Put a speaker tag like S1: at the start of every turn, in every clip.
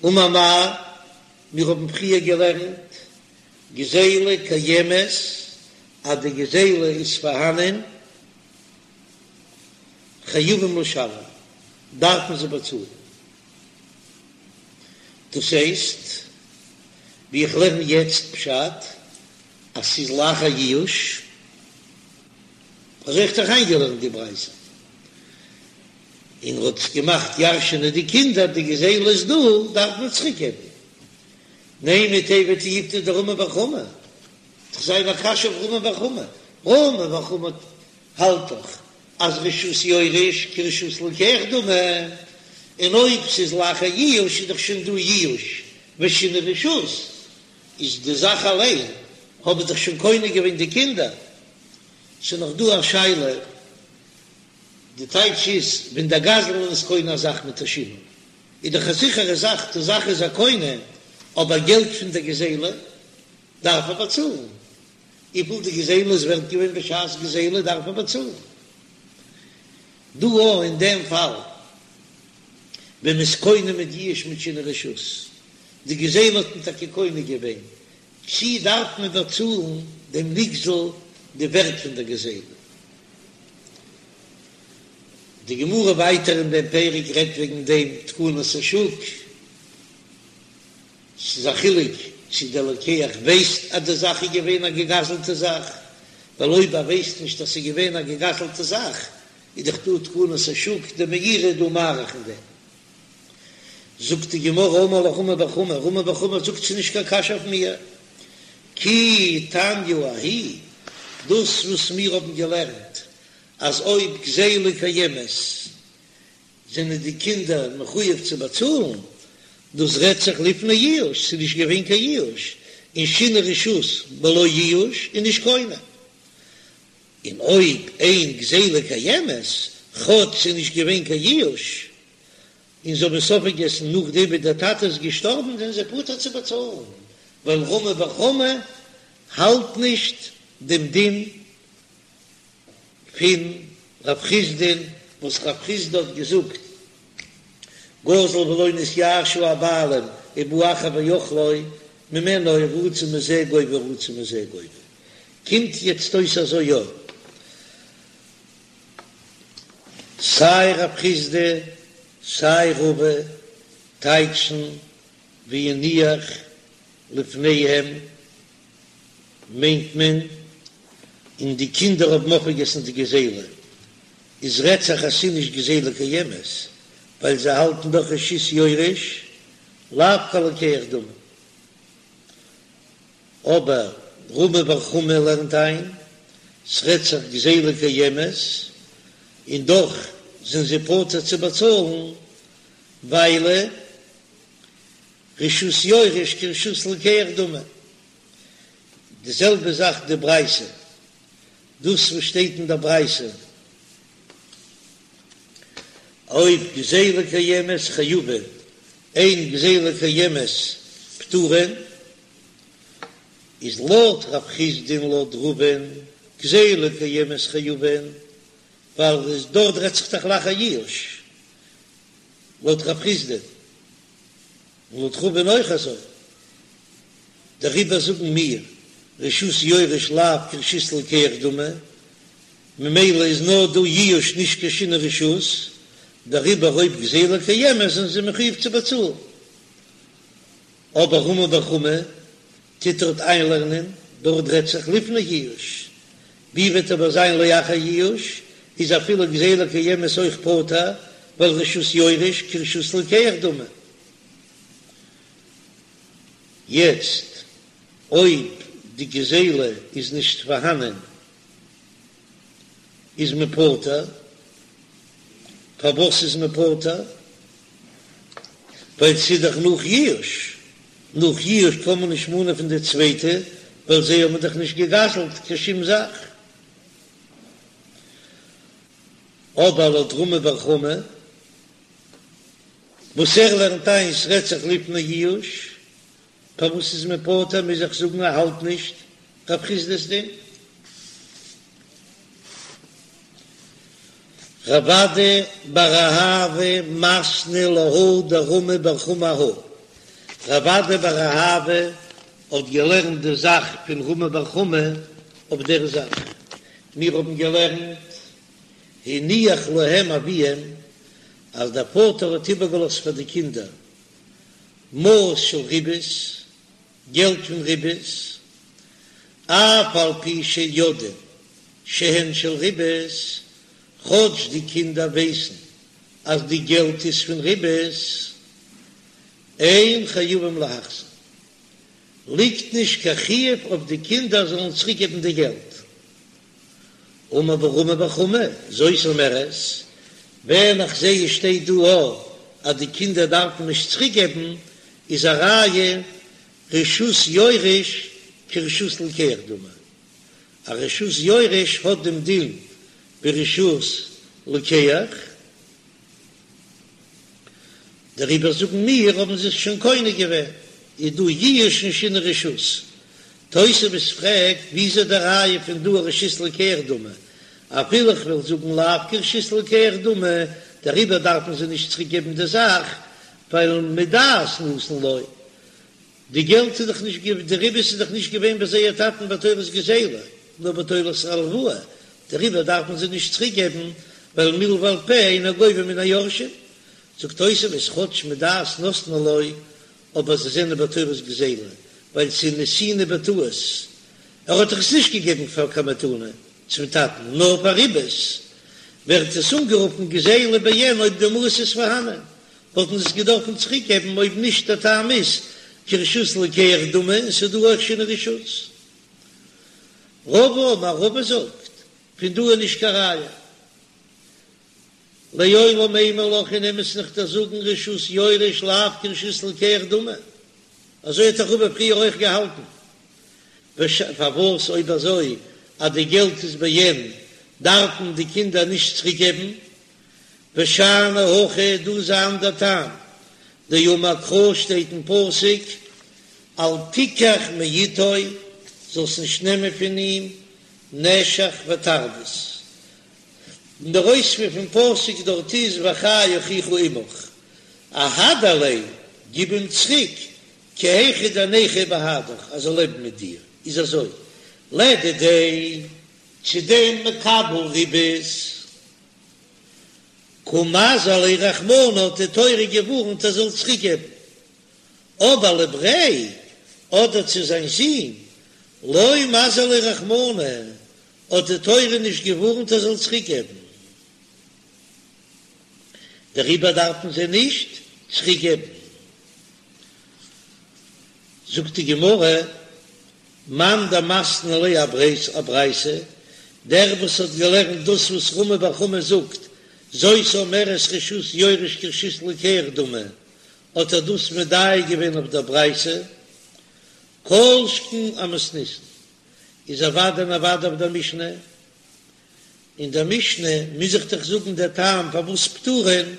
S1: אמר מר, מיר האבן פריער געלערנט גזילה קיימת אז די גזילה איז פארהאנען, חייבים לשלם, דארפן זיי באצאלן. דאס הייסט, ווי איך לערן יעצט פשט, אז ס'איז לאחר ייאוש, אזוי האב איך דאך איינגעלערנט די ברייתא, און ר'האט עס געמאכט ירש'ענען די קינדער, די גזילה איז דא, דארף מען צוריק געבן. נימא תיהוי תיובתא דרמי בר חמא, דאך זיין א קשיא אויף רמי בר חמא, רמי בר חמא האלט דאך אז רשות יורש כרשות לוקח דמי, און אויב ס'איז לאחר ייאוש איז דאך שוין דא ייאוש ושינוי רשות, איז די זאך אליין האבן דאך שוין קונה געווען די קינדער. ס'איז נאך דא א שאלה, די טייטש איז ווען דער גזלן איז קונה א זאך מיט א שינוי איז דאך א זיכערע זאך די זאך איז ער קונה, אבער געלט פון דער גזילה דארף ער באצאלן, וויפיל די גזילה איז ווערט געווען בשעת גזילה דארף ער באצאלן. דא אויך אין דעם פאל ווען מ'איז קונה מיט ייאוש מיט שינוי רשות, די גזילה האט מען טאקע קונה געווען, צי דארף מען באצאלן דעם נגזל די ווערט פון דער גזילה? די גמרא ווייטער אין דעם פרק רעדט וועגן דעם תקנת השוק. ס'איז א חילוק צי דער לוקח ווייסט אז די זאך איז געווען א געגזלטע זאך, ווייל אויב ער ווייסט נישט אז ס'איז געווען א געגזלטע זאך, איז דאך דא תקנת השוק, דער מאירי איז דא מאריך אין דעם. זאגט די גמרא אמר לך רמי בר חמא, רמי בר חמא זאגט ס'איז נישט קיין קשיא אויף מיר, כי תניא ההיא, דאס וואס מיר האבן געלערנט אז אויב גזילה קיימת זענען די קינדער מחויב צו באצאלן, דאס רעדט זיך לפני ייאוש, ס'איז נישט געווען קיין ייאוש, און שינוי רשות בלא ייאוש איז נישט קונה, און אויב אין גזילה קיימת, כאטש ס'איז נישט געווען קיין ייאוש, און זיי האבן עס אויפגעגעסן נאכדעם ווי דער טאטע איז געשטארבן, זענען זיי פטור צו באצאלן, ווייל רמי בר חמא האלט נישט דעם דין פון רב חסדא'ן וואס רב חסדא האט געזאגט גזל ולא נתייאשו הבעלים ובא אחר ואכלו ממנו רצה מזה גובה רצה מזה גובה קומט יעצט אויס אזוי יא סיי רב חסדא סיי רבא טייטשן והניח לפניהם מיינט מען און די קינדער האבן אויפגעגעסן די גזילה, איז רעדט זיך אז ס'איז נישט גזילה קיימת, ווייל זיי האלטן דאך רשות יורש לאו כלוקח דמי. אבער רמי בר חמא לערנט איין, ס'רעדט זיך גזילה קיימת, און דאך זענען זיי פטור צו באצאלן, ווייל רשות יורש כרשות לוקח דמי. די זעלבע זאך די ברייתא, דאס וואס שטייט אין דער ברייתא, אויב גזילה קיימת חייבין, אין גזילה קיימת פטורין, איז לויט רב חסדא און לויט רבא'ן גזילה קיימת חייבין, ווייל דארט רעדט זיך דאך לאחר ייאוש, לויט רב חסדא. און לויט רבא'ן אויך אזוי, דעריבער זאגן מיר רשות יורש לאו כרשות לוקח דמי, ממילא איז נאר דא ייאוש נישט קיין שינוי רשות, דעריבער אויב גזילה קיימת זענען זיי מחויב צו באצאלן. אבער רמי בר חמא טוט דארט איינלערנען, דארט רעדט זיך לפני ייאוש, ווי וועט אבער זיין לאחר ייאוש, איז אפילו גזילה קיימת אויך פטור, ווייל רשות יורש כרשות לוקח דמי. יעצט אויב די גזילה איז נישט פארהאנען איז מען פטור, פארוואס איז מען פטור? ווייל ס'איז דאך נאך ייאוש, נאך ייאוש קען מען נישט מאנען פון די צווייטע ווייל זיי האבן דאך נישט גע'גזל'ט קיין שום זאך. אבער לויט רמי בר חמא וואס ער לערנט איין ס'רעדט זיך לפני ייאוש, פארוואס איז מען פטור מוז איך זאגן ער האלט נישט רב חסדא'ס דין. רב אדא בר אהבה מתני להא דרמי בר חמא אהא. רב אדא בר אהבה האט געלערנט די זאך פון רמי בר חמא אויף דער זאך. מיר האבן געלערנט הניח להם אביהם אז דער פאטער האט איבערגעלאזט פאר די קינדער מעות של ריבית, געלט פון ריבית, אף על פי שיודעים שהן של ריבית, כאטש די קינדער ווייסן אז די געלט איז פון ריבית, אין חייבים להחזיר, ליגט נישט קיין חיוב אויף די קינדער זאלן צוריקגעבן די געלט. אמר רמי בר חמא, זאת אומרת, ווען איך זעה עס שטייט דא א אז די קינדער דארפן נישט צוריקגעבן, איז א ראיה רשות יורש כרשות לוקח דמי, א רשות יורש האט דעם דין ווי רשות לוקח, דעריבער זאגן מיר האבן זיי עס שוין קונה געווען, איז דא ייאוש און שינוי רשות. תוספות פרעגט ווי איז די ראיה פון דא רשות לוקח דמי, אפילו איך וועל זאגן לאו כרשות לוקח דמי, דעריבער דארפן זיי נישט צוריק געבן די זאך, ווייל מדעת נתן לו, די געלט איז דאך נישט די ריבית איז דאך נישט געווען ביי זייער טאטן בתורת גזילה, נאר בתורת הלוואה, דעריבער דארפן זיי נישט צוריק געבן, ווייל מלוה על פה אינו גובה מן היורשים. זאגט תוספות כאטש מדעת נתנו לו, אבער זיי זענען בתורת גזילה, ווייל ס'איז נתינה בטעות, ער האט דאך עס נישט געגעבן פאר קיין מתנה צום טאטן, נאר פאר ריבית, ווערט עס אנגערופן גזילה בעין אויב די מעות איז פארהאנען, וואלטן זיי עס געדארפן צוריק געבן אויב נישט דער טעם איז כרשות לוקח דמי און ס'איז דא אויך שינוי רשות. רבא אמר רבא זאגט פון דא איז נישט קיין ראיה. לעולם אימא לך אין אמת'ן איך דיר זאגן רשות יורש לאו כרשות לוקח דמי אזוי האט דאך רבא פריער אויך געהאלטן. פארוואס אויב אזוי אז די געלט איז בעין דארפן די קינדער נישט צוריק געבן? ושאני הכא דא איז אן אנדער טעם, דאמר קרא שטייט אין פסוק אל תיקח מאתו, זאלסט נישט נעמען פון אים נשך ותרדות, און דער אויספיר פון פסוק דארט איז וחי אחיך עמך, אהדר ליה, גיב אים צוריק, כי היכי דניחיה בהדך, אז ער זאל לעבן מיט דיר, איז אזוי, לדידיה, צו דעם מקבל ריבית. קא מזהר ליה רחמנא האט די תורה געווארנט ער זאל צוריק געבן, אבער לבריה אדער צו זיין זון לא מזהר ליה רחמנא האט די תורה נישט געווארנט ער זאל צוריק געבן, דעריבער דארפן זיי נישט צוריק געבן. זאגט די גמרא. מאן דמתני לה אברייתא, דער וואס האט געלערנט דאס וואס רמי בר חמא זאגט, זאת אומרת רשות יורש כרשות לוקח דמי, האט ער דאס מדייק געווען אויף דער ברייתא, כל שכן אמתניתין, איז אוודאי און אוודאי אויף דער משנה, אין דער משנה מוז איך דאך זאגן דער טעם פארוואס פטורין,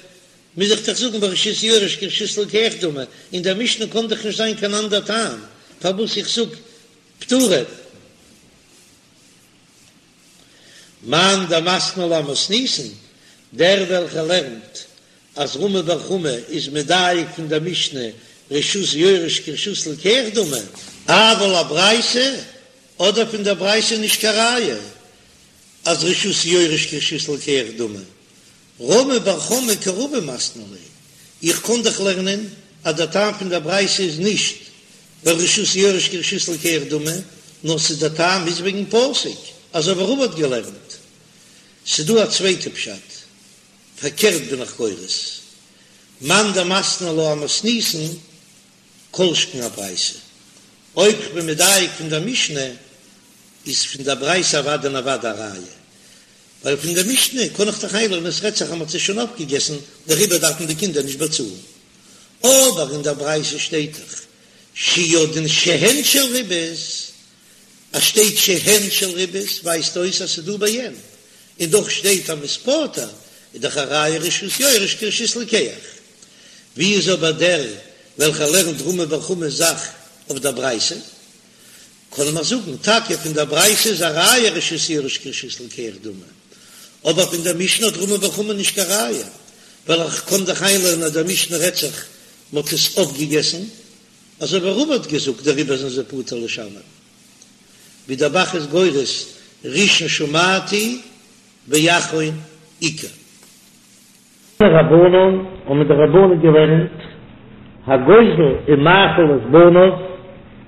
S1: מוז איך דאך זאגן ווייל רשות יורש כרשות לוקח דמי, אין דער משנה קען דאך נישט זיין קיין אנדער טעם פארוואס איך זאג פטורין. מאן דמתני לה אמתניתין, דער וועלכער לערנט אז רמי בר חמא איז מדייק פון דער משנה רשות יורש כרשות לוקח דמי, אבל אברייתא, אדער פון דער ברייתא נישט קיין ראיה אז רשות יורש כרשות לוקח דמי, רמי בר חמא כרבא מתני לה, איך קען דאך לערנען אז דער טעם פון דער ברייתא איז נישט ווייל רשות יורש כרשות לוקח דמי, נאר ס'איז דער טעם איז וועגן פסוק, אזוי ווי רבא האט געלערנט. ס'דא א צווייטע פשט, פארקערט בין איך גורס, מאן דמתני לה אמתניתין, כל שכן אברייתא. אויב כ'בין מדייק פון דער משנה, איז פון דער ברייתא אוודאי און אוודאי א ראיה. ווייל פון דער משנה קען איך דאך איינלערנען עס רעדט זיך אז מ'האט עס שוין אויפגעגעסן, דעריבער דארפן די קינדער נישט באצאלן. אבער אין דער ברייתא שטייט דאך שיודעין שהן של ריבית, אז שטייט שהן של ריבית ווייזט אויס אז ס'איז דא בעין, און דאך שטייט אז מ'איז פטור, איז דאך א ראיה רשות יורש כרשות לוקח. ווי איז אבער דער וועלכער לערנט רמי בר חמא'ס זאך אויף דער ברייתא? קען מען זאגן, טאקע פון דער ברייתא איז א ראיה רשות יורש כרשות לוקח דמי, אבער פון דער משנה האט רמי בר חמא נישט קיין ראיה, ווייל איך קען דאך איינלערנען אז דער משנה רעדט זיך מ'האט עס אויפגעגעסן. אזוי ווי רבא האט געזאגט דעריבער זענען זיי פטור לשלם, ווי דער ב"ח איז גורס ראשון שמעתי ואחרון עיקר.
S2: תנו רבנן האבן די רבנן געלערנט, הגוזל ומאכיל את בניו,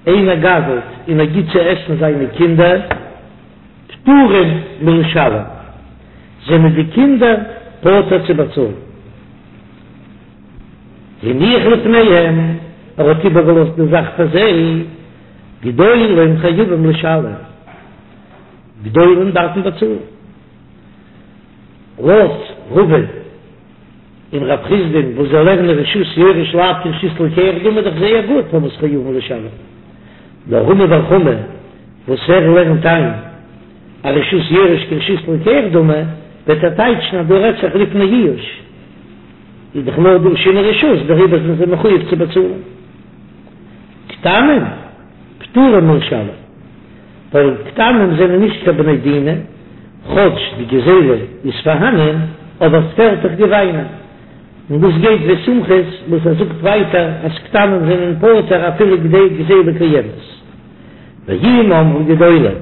S2: איינער גזל'ט און ער גיט צו עסן זיינע קינדער, פטורים מלשלם, זענען די קינדער פטור צו באצאלן. הניח לפניהם, ער האט איבערגעלאזט די זאך פאר זיי, גדולים חייבים לשלם, גדולים דארפן באצאלן. לויט רבא און רב חסדא'ן וואס זיי לערנען רשות יורש לאו כרשות לוקח דמי איז דאך זייער גוט פארוואס חייבים לשלם, נאר רמי בר חמא וואס ער לערנט איין אז רשות יורש כרשות לוקח דמי וועט ער טייטשן אז דא רעדט זיך לפני יאוש איז דאך נאר דא שינוי רשות דעריבער זענען זיי מחויב צו באצאלן קטנים פטורים מלשלם. ווייל קטנים זענען נישט קיין בני דינא, כאטש די גזילה איז פארהאנען, אבער ס'פעלט דאך געוויינען. און דאס גייט ווי סומכוס וואס ער זאגט ווייטער אז קטנים זענען פטור אפילו גזילה קיימת. ואם אמרו גדולים,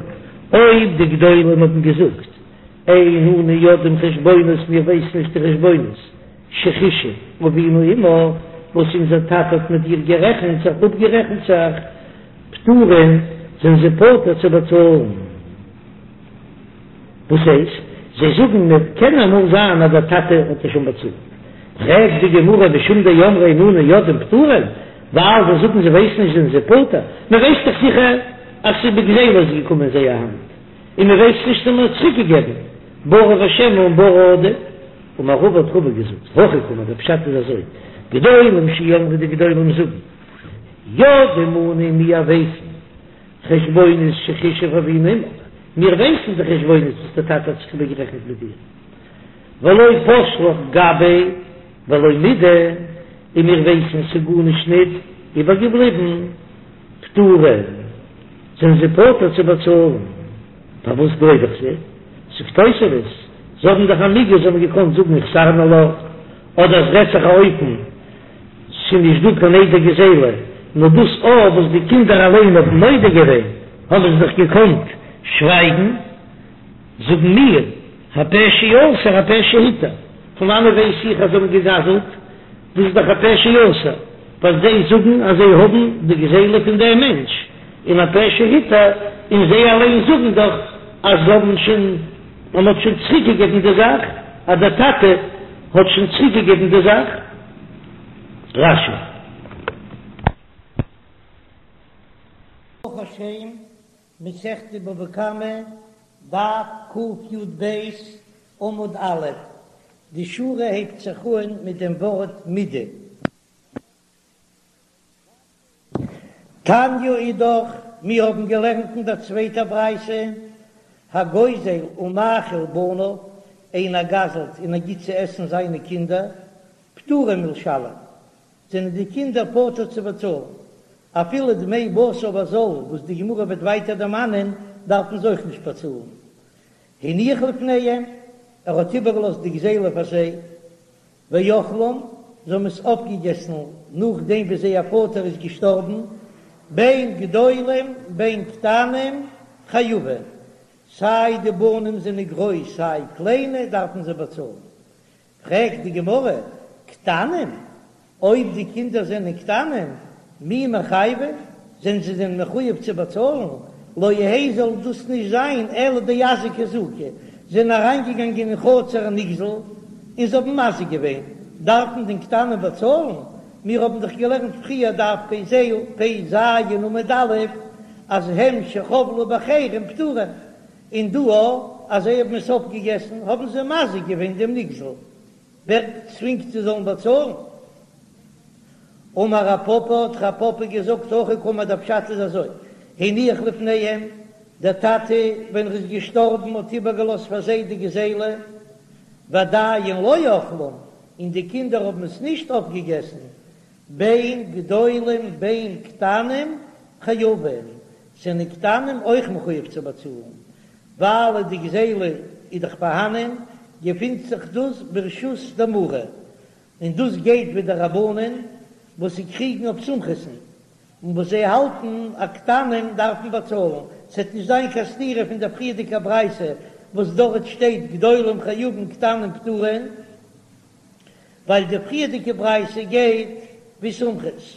S2: אויב די גדולים האבן געזאגט, אין אנו יודעים חשבונות מיר ווייסן נישט די חשבונות, שחישב אבינו עמך, וואס אונזער טאטע האט מיט דיר גערעכנט זיך, אפגערעכנט זיך, פטורין, זענען זיי פטור צו באצאלן. וואס הייסט? זיי זאגן מיר קען אמאל זיין אז דער טאטע האט עס שוין באצאלט. פרעגט די גמרא משום דאמרי אין אנו יודעים פטורין, ווייל זיי זאגן זיי ווייסן נישט זענען זיי פטור, מען ווייסט דאך זיכער אז ס'איז בגזילה איז געקומען אין זייער האנט, און מען ווייסט נישט צו מען האט צוריק געגעבן, ברי ושמא און ברי עדיף. אמר רבא האט רבא געזאגט, הכי קאמר, דער פשט איז אזוי, גדולים שאמרו די גדולים זאגן, יודעים אנו מיר ווייסן חשבונות שחישב אבינו עמך, מיר ווייסן די חשבונות וואס דער טאטע האט זיך איבערגערעכנט מיט דיר, ולא פש לך גביה ולא מידי, און מיר ווייסן ס'איז גארנישט ניט איבערגעבליבן, פטורין, זענען זיי פטור צו באצאלן. פארוואס גלייב איך זיי? זאגט תוספות, זיי האבן דאך א מיגו, זיי האבן געקאנט זאגן החזרנו לך, אדער עס רעדט זיך א אופן ס'איז נישט דא קיין עדי גזילה, נאר דאס א וואס די קינדער אליין האבן מודה געווען, האבן זיי דאך געקאנט שווייגן. זאגן מיר, הפה שאסר הפה שהתיר, פון וואנעט ווייס איך אז זיי האבן געגזלט? דאס איז דאך הפה שאסר, ווייל זיי זאגן אז זיי האבן די גזילה פון דעם מענטש, און הפה שהתיר, און זיי אליין זאגן דאך אז זיי האבן שוין, אז מ'האט שוין צוריקגעגעבן די זאך, אז דער טאטע האט שוין צוריקגעגעבן די זאך. רש"י.
S1: ברוך השם, מסכת בבא קמא, דף קי"ב, עמוד א', די שורה הייבט זיך אן מיט דעם ווארט מידי. תניא אידך, מיר האבן געלערנט אין דער צווייטער ברייתא, הגוזל ומאכיל בניו, איינער גזל'ט און ער גיט צו עסן זיינע קינדער, פטורים מלשלם, זענען די קינדער פטור צו באצאלן, אפילו דמי בשר בזול וואס די גמרא וועט ווייטער דערמאנען דארפן זיי אויך נישט באצאלן. הניח לפניהם, ער האט איבערגעלאזט די גזילה פאר זיי, ואכלום, זיי האבן עס אויפגעגעסן נאכדעם ווי זייער פאטער איז געשטארבן, בין גדולים בין קטנים חייבים, סיי די בנים זענען גרויס סיי קליינע דארפן זיי באצאלן. פרעגט די גמרא, קטנים? אויב די קינדער זענען קטנים, מי מיחייבי, זענען זיי דען מחויב צו באצאלן? לא יהא זאל דאס נישט זיין אלא דאזיק אזוקי, זענען אריינגעגאנגען אין חצר הנגזל און זיי האבן מזיק געווען, דארפן דען קטנים באצאלן? מיר האבן דאך געלערנט פריער דף פ"ז עמוד א' אז הם שחבלו באחרים פטורים, און דא אז זיי האבן עס אויפגעגעסן האבן זיי מזיק געווען דעם נגזל, ווער צווינגט זיי זאלן באצאלן? אמר רב פפא, האט רב פפא געזאגט, הכי קאמר דער פשט איז אזוי, הניח לפניהם, דער טאטע ווען ער איז געשטארבן האט איבערגעלאזט פאר זיי די גזילה, ועדיין לא אכלום, און די קינדער האבן עס נישט אויפגעגעסן, בין גדולים בין קטנים חייבים, זענען קטנים אויך מחויב צו באצאלן, ווייל די גזילה איז דאך פארהאנען, געפינט זיך דאס ברשות דמרה, און דאס גייט ווי די רבנן וואס זיי קריגן אויף סומכוס'ן. און וואס זיי האלטן אז קטנים דארפן באצאלן, ס'עט נישט זיין קיין סתירה פון דער פריערדיגער ברייתא וואס דארט שטייט גדולים חייבין קטנים פטורין, ווייל די פריערדיגע ברייתא גייט ווי סומכוס.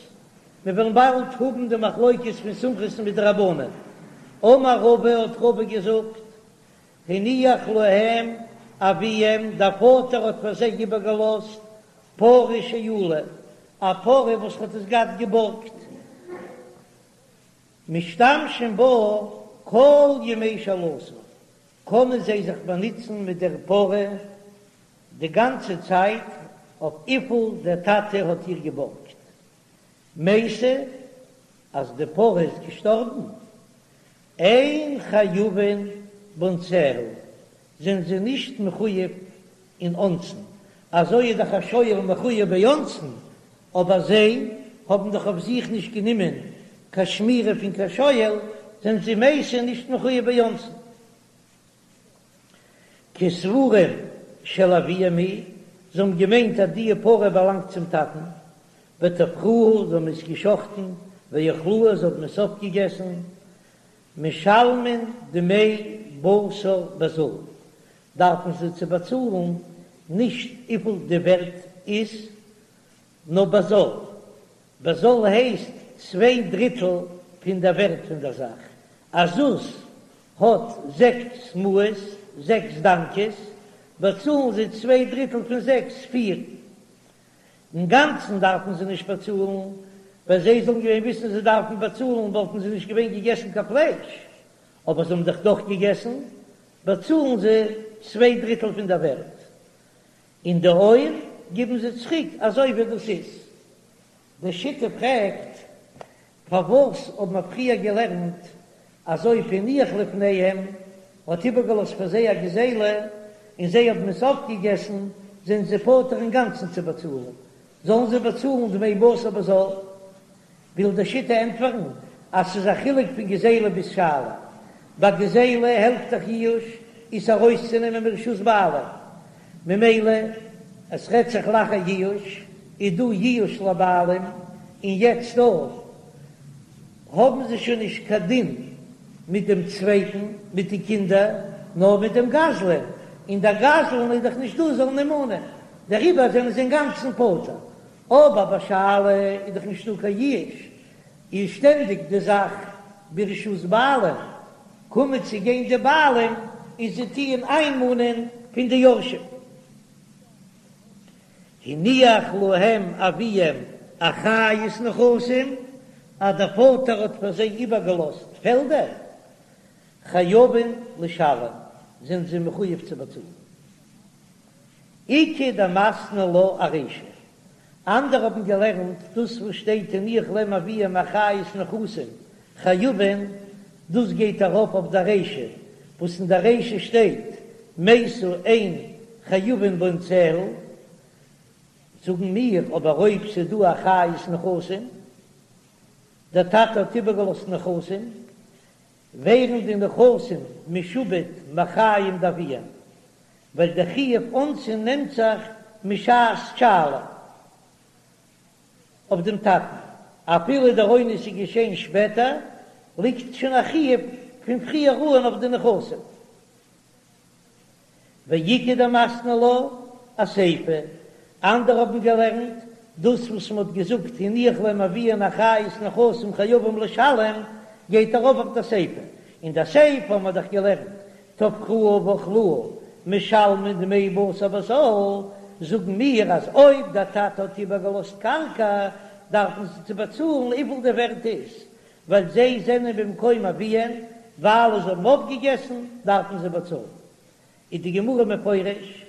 S1: מיר וועלן באלד האבן די מחלוקת פון סומכוס מיט די רבנן. אמר רבא האט רבא געזאגט, הניח להם אביהם, דער פאטער האט פאר זיי איבערגעלאזט פרה שאולה, א פרה וואס האט עס געהאט געבארגט, משתמשים בה כל ימי שאלתה, קענען זיי זיך באנוצן מיט דער פרה די גאנצע צייט אויף וויפיל דער טאטע האט איר געבארגט. מתה, אז די פרה איז געשטארבן, אין חייבין באונסיה, זענען זיי נישט מחויב אין אונסין, אזוי איז דאך א שואל מחויב באונסין, אבער זיי האבן דאך אויף זיך נישט גענומען קיין שמירה פון קיין שואל, זענען זיי מתה נישט מחויב באונסין. כסבורים של אביהם היא, זיי האבן געמיינט אז די פרה באלאנגט צום טאטן, וטבחוה, זיי האבן עס געשחטן, ואכלוה, זיי האבן עס אויפגעגעסן, משלמין דמי בשר בזול, דארפן זיי צו באצאלן נישט וויפיל די ווערט איז, נאר בזול, בזול הייסט צוויי דריטל פון דער ווערט פון דער זאך, א זוז האט זעקס מעות, זעקס דאנקעס, באצאלן זיי צוויי דריטל פון זעקס, פיר. אינגאנצן דארפן זיי נישט באצאלן, ווען זיי זאלן געווען וויסן זיי דארפן באצאלן וואלטן זיי נישט געווען געגעסן קיין פלייש, אבער זיי האבן דאך דאך געגעסן, באצאלן זיי צוויי דריטל פון דער ווערט, און די עור גיבן זיי צוריק אזוי ווי דאס איז. די שיטה פרעגט, פארוואס האט מען פריער געלערנט אז אויב הניח לפניהם האט איבערגעלאזט פאר זיי א גזילה און זיי האבן עס אויפגעגעסן זענען זיי פטור אינגאנצן צו באצאלן, זאלן זיי באצאלן דמי בשר בזול? וויל די שיטה ענטפערן אז ס'איז א חילוק פון גזילה ביז שאלה, ביי גזילה העלפט דאך ייאוש עס ארויסצונעמען מרשות בעלים, ממילא עס רעדט זיך לאחר ייאוש, איז דא ייאוש לבעלים, און יעצט דא האבן זיי שוין נישט קיין דין מיט דעם צווייטן, מיט די קינדער, נאר מיט דעם גזלן, און דער גזלן איז דאך נישט דא זאלן אים מאנען, דעריבער זענען זיי אינגאנצן פטור. אבער ביי שאלה איז דאך נישטא קיין ייאוש, איז שטענדיג די זאך ברשות בעלים, קומען צו גיין די בעלים און זיי טוען איינמאנען פון די יורשים. הניח להם אביהם אחריות נכסים, אז דער פאטער האט פאר זיי איבערגעלאזט פעלדער, חייבין לשלם, זענען זיי מחויב צו באצאלן. איכא דמתני לה ארישא, אנדערע האבן געלערנט דאס וואס שטייט הניח להם אביהם אחריות נכסים חייבין, דאס גייט ארויף אויף די רישא, וואס אין די רישא שטייט מתה אין חייבין באונסיה, זאגן מיר אבער אויב ס'איז דא אחריות נכסים, דער טאטע האט איבערגעלאזט נכסים, ווערן די נכסים משועבד מחיים דאביהם, ווייל דער חיוב אונסין נעמט זיך משעת שאלה אויף דעם טאטן, אפילו דער אונס איז געשען שפעטער, ליגט שוין א חיוב פון פריער אן אויף די נכסים. ואיכא דמתני לה אסיפא, אנדערע האבן געלערנט, דאס וואס מען האט געזאגט הניח להם אביהן אחריות נכסים חייבים לשלם, גייט ארויף אויף די סיפא, אין די סיפא האבן מיר דאך געלערנט טבחוה ואכלוה משלמין דמי בשר בזול, זאגן מיר אז אויב דער טאטע האט איבערגעלאזט קרקע דארפן זיי צו באצאלן וויפיל די ווערט איז, ווייל זיי זענען במקום אביהן, ווייל זיי האבן אויפגעגעסן דארפן זיי באצאלן. איז די גמרא מפרש,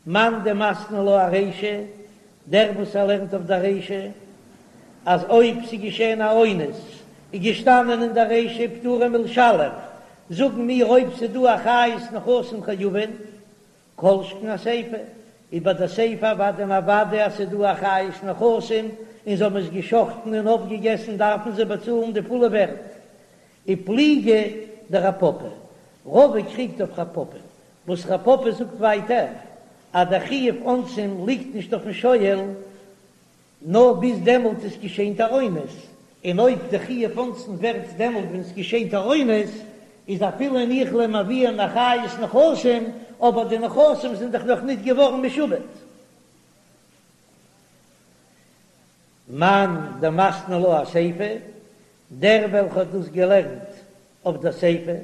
S1: מאן דמתני לה ארישא, דער וואס ער לערנט אויף דער רישא, אז אויב ס'איז געשען א אונס, איז געשטאנען אין דער רישא פטורין מלשלם, זאגן מיר אויב ס'איז דא אחריות נכסים חייבין, כל שכן אסיפא, איז ביי די סיפא אוודאי און אוודאי אז ס'איז דא אחריות נכסים, און זיי האבן עס געשחטן און אויפגעגעסן דארפן זיי באצאלן די פולע ווערט. ופליגא דרב פפא, רבא קריגט אויף רב פפא, וואס רב פפא זאגט ווייטער אז דער חיוב אונסין ליגט נישט אויפן שואל, נאר ביז דעמאלט איז געשען דער אונס. און אויב די חיוב אונסין ווערט דעמאלט ווען עס געשענט א אונס, איז אפילו הניח להם אביהם אחריות נכסים, אבער די נכסים זענען דאך נאך ניט געווארן משועבד. מאן דמתני לה אסיפא, דער וועלכע האט דאס געלערנט אויף דער סיפא,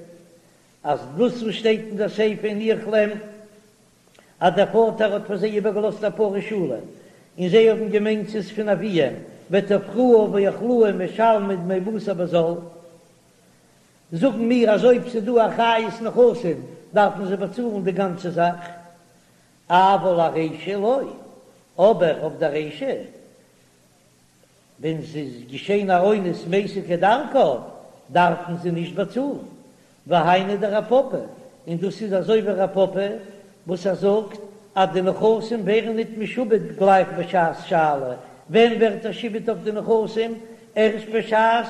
S1: אז דאס וואס שטייט אין דער סיפא הניח להם אז דער פאטער האט פאר זיי איבערגעלאזט א פרה שאולה, און זיי האבן געמיינט ס'איז פון אביהם, וטבחוה ואכלוה משלמין דמי בשר בזול, זאגן מיר אז אויב ס'איז דא אחריות נכסים דארפן זיי באצאלן די גאנצע זאך, אבל ארישא לא, אבער אויף די רישא ווען ס'איז געשען א אונס מתה כדרכה דארפן זיי נישט באצאלן, והיינו דרב פפא, און דאס איז אזוי ווי רב פפא וואס ער זאגט אז די נכסים ווערן ניט משועבד גלייך בשעת שאלה, ווען ווערט א שעבוד אויף די נכסים? ערשט בשעת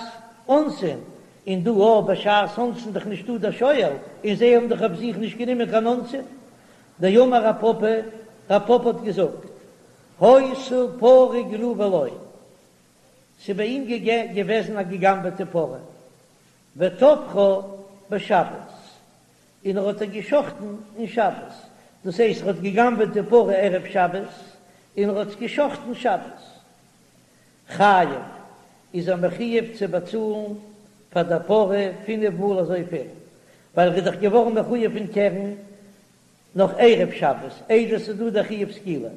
S1: אונסין, און דא אויך בשעת אונסין דאך נישטא דער שואל, און זיי האבן דאך אויף זיך נישט גענומען קיין אונסין. דאמר רב פפא, רב פפא האט געזאגט, היתה פרה גנובה לו, ס'איז ביי אים געוועזן א געגנבעטע פרה, וטבחה בשבת, און ער האט איר געשחטן אין שבת, דאס הייסט ער האט געגנבעט די פרה ערב שבת, און ער האט עס געשחטן שבת. חייב, איז ער מחויב צו באצאלן פאר דער פרה פינף מאל אזויפיל, ווייל ער איז דאך געווארן מחויב אין קרן נאך ערב שבת, איידער ס'איז דא דער חיוב סקילה.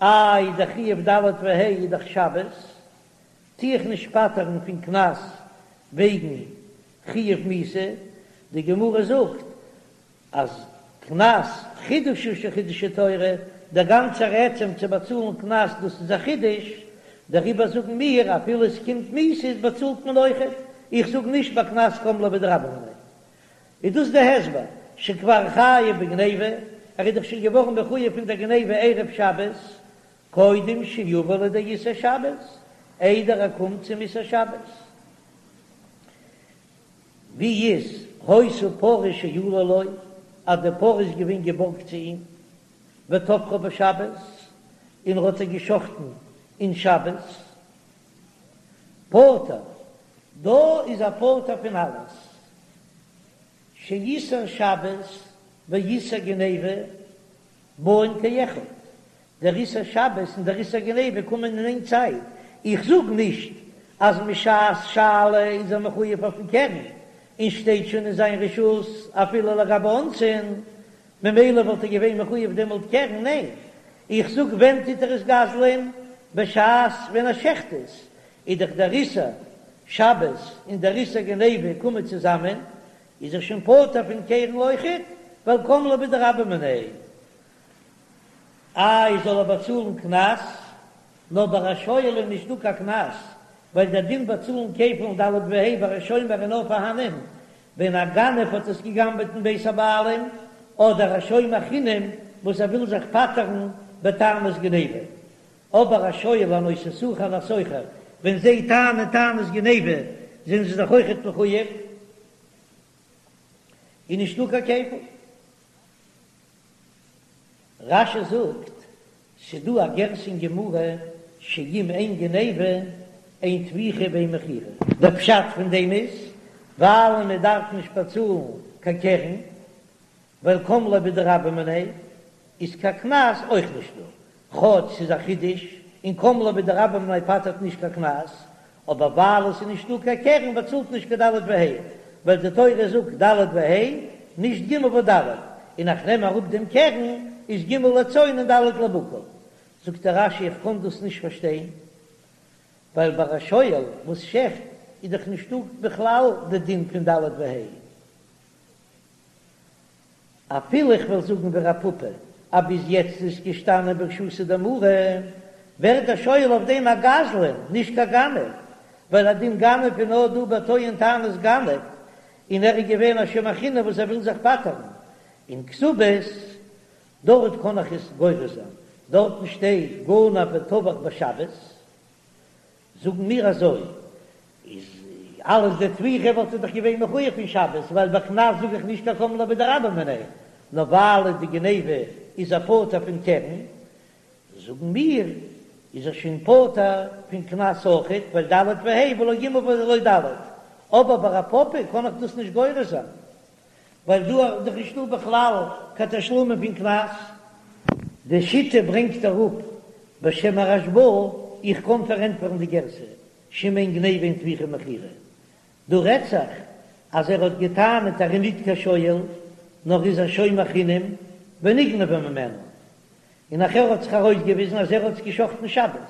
S1: איי דער חיוב ד' וה' איז דאך שבת, טו איך נישט פטר'ן פון קנס וועגן חיוב מיתה, די גמרא זאגט אז קנס חידוש הוא שחידשה תורה, דער גאנצער עצם צו באצאלן קנס דאס איז א חידוש, דעריבער זאגן מיר אפילו עס קומט מיתה איז באצאלט מען אויכעט, איך זאג נישט ביי קנס קם ליה בדרבה מיניה. איז דאס די הסבר שכבר חייב בגניבה, ער איז דאך שוין געווארן מחויב פון דער גניבה ערב שבת, קודם שיבא לידי איסור שבת, איידער ער קומט צום איסור שבת. ווי איז היתה פרה שאולה לו, אז די פרה איז געווען געבארגט צו אים, וטבחה בשבת, און ער האט איר געשחטן אין שבת, פטור, דא איז ער פטור פון אלעס, שאיסור שבת ואיסור גניבה באין כאחד, דער איסור שבת און דער איסור גניבה קומען אין איין צייט, איך זאג נישט אז משעת שאלה איז ער מחויב אויפן קרן, און שטייט שוין אין זיין רשות אפילו לגבי אונסין, ממילא וואלט ער געווען מחויב דעמאלט קרן, ניין, איך זאג ווען טוט ער עס גזל'ען? בשעת ווען ער שעכט עס, איז דאך דער איסור שבת און דער איסור גניבה קומען צוזאמען, איז ער שוין פטור פון קרן אויכעט, ווייל קם ליה בדרבה מיניה. איי זאל ער באצאלן קנס? נאר ביי א שואל איז נישט דא קיין קנס, ווייל דער דין באצאלן כפל ד' וה' ביי א שומר איז נאר פארהאנען ווען א גנב האט עס געגנבעט אין בית הבעלים, אדער א שומר חינם וואס ער וויל זיך פטר'ן בטענת גניבה. אבער א שואל א נושא שכר און א שוכר ווען זיי טענה'ן טענת גניבה זענען זיי דאך אויכעט מחויב, איז נישטא קיין כפל. רש"י זאגט, ס'דא א גירסא אין גמרא שאם אין גניבה אין טביחה ואין מכירה. דער פשט פון דעם איז ווייל מען דארף נישט באצאלן קיין קרן, ווייל קם ליה בדרבה מיניה איז קיין קנס אויך נישט דא, כאטש ס'איז א חידוש און קם ליה בדרבה מיניה פטר'ט נישט קיין קנס, אבער ווייל עס איז נישט דא קיין קרן באצאלט נישט קיין ד' וה', ווייל די תורה זאגט ד' וה' נישט ג' וד', און איך נעם אראפ דעם קרן איז ג' לצאן און ד' לבקר. זאגט דער רש"י איך קען דאס נישט פארשטיין, ווייל ביי א שואל וואס שעכט איז דאך נישטא בכלל די דין פון ד' וה'. אפילו איך וועל זאגן ווי רב פפא אז ביז יעצט איז געשטאנען ברשותא דמרא, ווערט דער שואל אויף דעם א גזלן, נישט קיין גנב, ווייל א דין גנב איז נאר דא ביי טוען טענת גנב, און ער איז געווען א שומר חינם וואס ער וויל זיך פטר'ן. אין כתובות, דארט קען איך עס גורס זיין, דארטן שטייט גנב וטבח בשבת, זאגן מיר אזוי, איז אלעס די טביחה וואלט ער דאך געווען מחויב פון שבת, ווייל ביי קנס זאג איך נישט קיין קם ליה בדרבה מיניה, נאר ווייל די גניבה איז ער פטור פון קרן, זאגן מיר. איז ער שוין פטור פון קנס אויכעט, ווייל ד' וה' ולא ג' ולא ד', אבער ביי רב פפא קען איך דאס נישט גורס זיין, ווייל דא איז דאך נישטא בכלל קיין תשלומין פון קנס. די שיטה ברענגט אראפ בשם הרשב"א, איך קען פארענטפערן די גירסא, שאם אין גניבה אין טביחה ומכירה, דא רעדט זיך אז ער האט געטענה'ט ער איז ניט קיין שואל, נאר איז א שומר חינם ונגנבה ממנו, און נאכער האט זיך ארויסגעוויזן אז ער האט עס געשחטן שבת.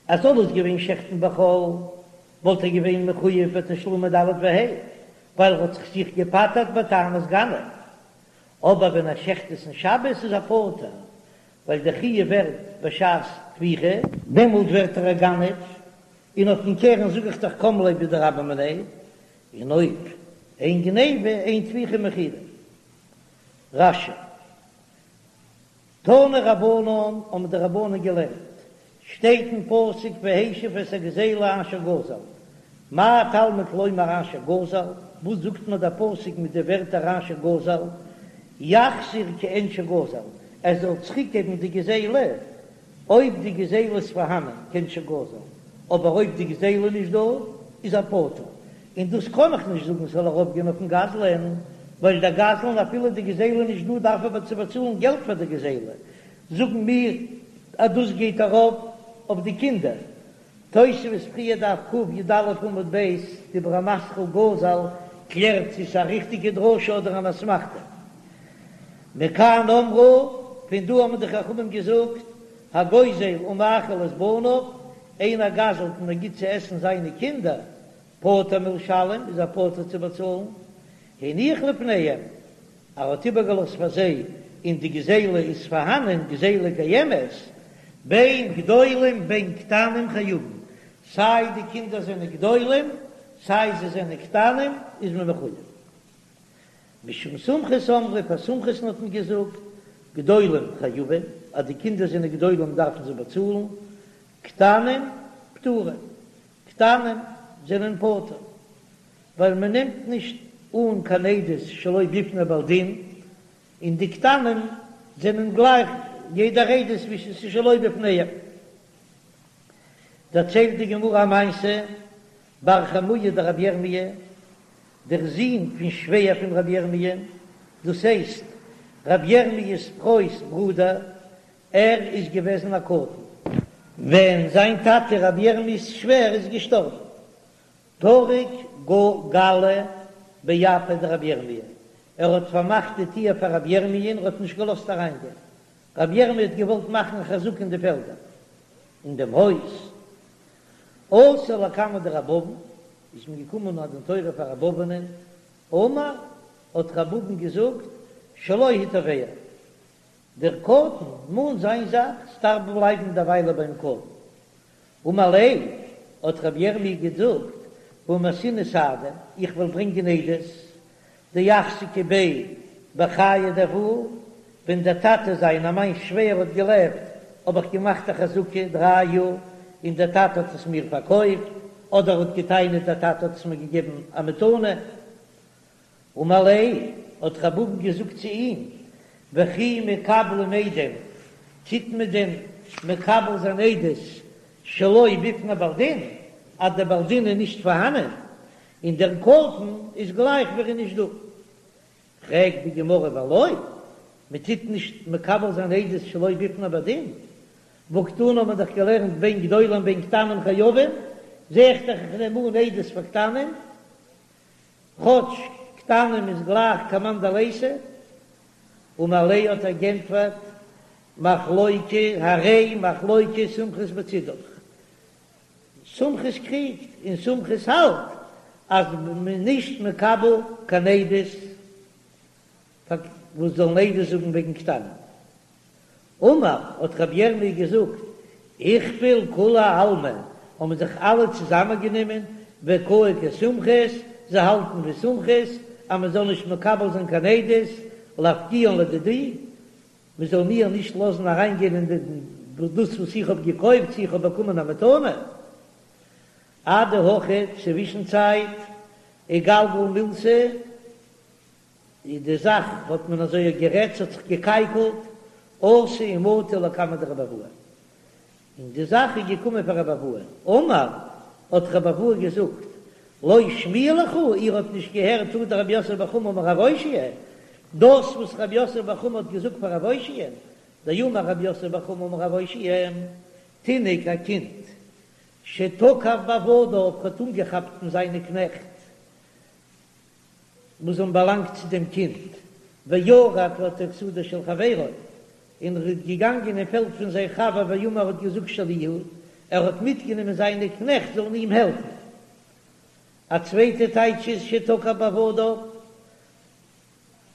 S1: אז זאל עס געווען שעכטן בחול וואלט ער געווען מחויב בתשלומי ד' וה', ווייל ער האט זיך זיך געפטר'ט בטענת גנב. אבער ווען ער שעכט עס אין שבת איז ער פטור, ווייל דער חיוב ווערט בשעת טביחה. דעמאלט ווערט ער א גנב, און אויפן קרן זאג איך דאך קם ליה בדרבה מיניה, און אויב אין גניבה אין טביחה ומכירה. רש"י. תנו רבנן האבן די רבנן געלערנט, שטייט אין פסוק והשיב את הגזילה אשר גזל, מה תלמוד לומר אשר גזל, וואס זאגט מיר דער פסוק מיט די ווערטער אשר גזל, יחזיר כעין שגזל, ער זאל צוריקגעבן די גזילה, אויב די גזילה איז פארהאנען כעין שגזל, אבער אויב די גזילה איז נישט דא איז ער פטור, און דאס קען איך נישט זאגן ס'זאל ארויפגיין אויפן גזלן, ווייל דער גזלן אפילו די גזילה איז נישט דא דארף ער צו באצאלן געלט פאר די גזילה, זאגן מיר אז דאס גייט ארויף אויף די קינדער. תוספות פריער דף קי"א עמוד ב', דיבור המתחיל גזל קלערט צו ס'איז א ריכטיגע דרשה אדער אן אסמכתא. מכאן אמרו, פון דא האבן די חכמים געזאגט, הגוזל ומאכיל את בניו, איינער גזל'ט און ער גיט צו עסן זיינע קינדער, פטור מלשלם, איז ער פטור צו באצאלן, הניח לפניהם, ער האט איבערגעלאזט פאר זיי, און די גזילה איז פארהאנען, גזילה קיימת, בין גדולים בין קטנים חייבים, סיי די קינדער זענען גדולים, סיי זיי זענען קטנים, איז מען מחויב. משום סומכוס אמרו, פאר סומכוס'ן האט מען געזאגט, גדולים חייבים, אז די קינדער זענען גדולים דארפן זיי באצאלן, קטנים פטורים, קטנים זענען פטור, ווייל מען נעמט נישט אן קיין עדות שלא בפני בעל דין, און די קטנים זענען גלייך יעדער עדות ווי ס'איז שלא בפניהם. דערציילט די גמרא א מעשה, בר חמוה דרבי ירמי', דער זון פון שווער פון רבי ירמי', דאס הייסט רבי ירמיה'ס פרוי'ס ברודער, ער איז געוועזן א קטן ווען זיין טאטע רבי ירמיה'ס שווער איז געשטארבן, טרק גלא באפיה דרבי ירמי', ער האט פארמאכט די טיר פאר רבי ירמי' און ער האט נישט געלאזט אריינגיין, רבי ירמי' האט געוואלט מאכן א חזקה אין די פעלדער אין דעם הויז, אתו לקמיה דרב אבין, איז מען געקומען א דין תורה פאר רב אבינ'ען, אמר, האט רב אבין געזאגט, שלו הוא תובע, דער קטן מאנט זיין זאך, ס'דארף בלייבן דערוויילע ביים קטן. אמר ליה, האט רבי ירמי' געזאגט, והא מייתינא סהדי, איך וועל ברענגען עדות, דאחזקי ביה בחיי דאבוה, ווען דער טאטע זיינער מיין שווער האט געלעבט, האב איך געמאכט א חזקה דריי יאר, און דער טאטע האט עס מיר פארקויפט, אדער האט געטענה'ט דער טאטע האט עס מיר געגעבן א מתנה. אמר ליה, האט רב אבין געזאגט צו אים, וכי מקבלים עדים, טוט מען דען מקבל זיין עדות שלא בפני בעל דין, אז דער בעל דין איז נישט פארהאנען, און דער קטן איז גלייך ווי ער איז נישט דא. פרעגט די גמרא ולא, מען טוט נישט מקבל זיין עדות שלא בפני בעל דין, והקתני האט מען דאך געלערנט בין גדולים בין קטנים חייבים, זע איך דאך איך נעם אן עדות פאר קטנים, כאטש קטנים איז גלייך כמאן דליתא, אמר ליה האט ער גענטפערט, מחלוקת הרי מחלוקת סומכוס בצידך, סומכוס קריגט און סומכוס האלט אז מ'איז נישט מקבל קיין עדות וואס זאלן עדות זאגן וועגן קטנים. אמר, האט רבי ירמי' געזאגט, איכפל כולי עלמא, האבן זיך אלע צוזאמען גענומען, וקאי כסומכוס, זיי האלטן ווי סומכוס, אז מען זאל נישט מקבל זיין קיין עדות, לאפקוען לדידי, מען זאל מיר נישט לאזן אריין גיין אין דאס וואס איך האב געקויפט, צו איך האב באקומען א מתנה. אדהכי, צווישן צייט, איגלגל מילתא, איז די זאך האט מען אזוי גערעדט ס'האט זיך געקייקלט, אתו ומטו לקמיה דרבי אבהו. און די זאך איז געקומען פאר רבי אבהו, אמר, האט רבי אבהו געזאגט, לא שמיע לכו, איר האט נישט געהערט הא דרב יוסף בר חמא אמר רב אושעיא, דאס וואס רב יוסף בר חמא האט געזאגט פאר רב אושעיא, דאמר רב יוסף בר חמא אמר רב אושעיא, תינוק א קינד, שתקף בעבדיו האט אנגעכאפט פון זיינע קנעכט וואס האבן באלאנגט צו דעם קינד, וירד לתוך שדה של חברו, און ער איז געגאנגען אין פעלד פון זיין חבר ואמר האט געזאגט שלי הוא, ער האט מיטגענומען זיינע קנעכט זאלן אים העלפן. א צווייטע טייטש איז שתקף בעבדיו,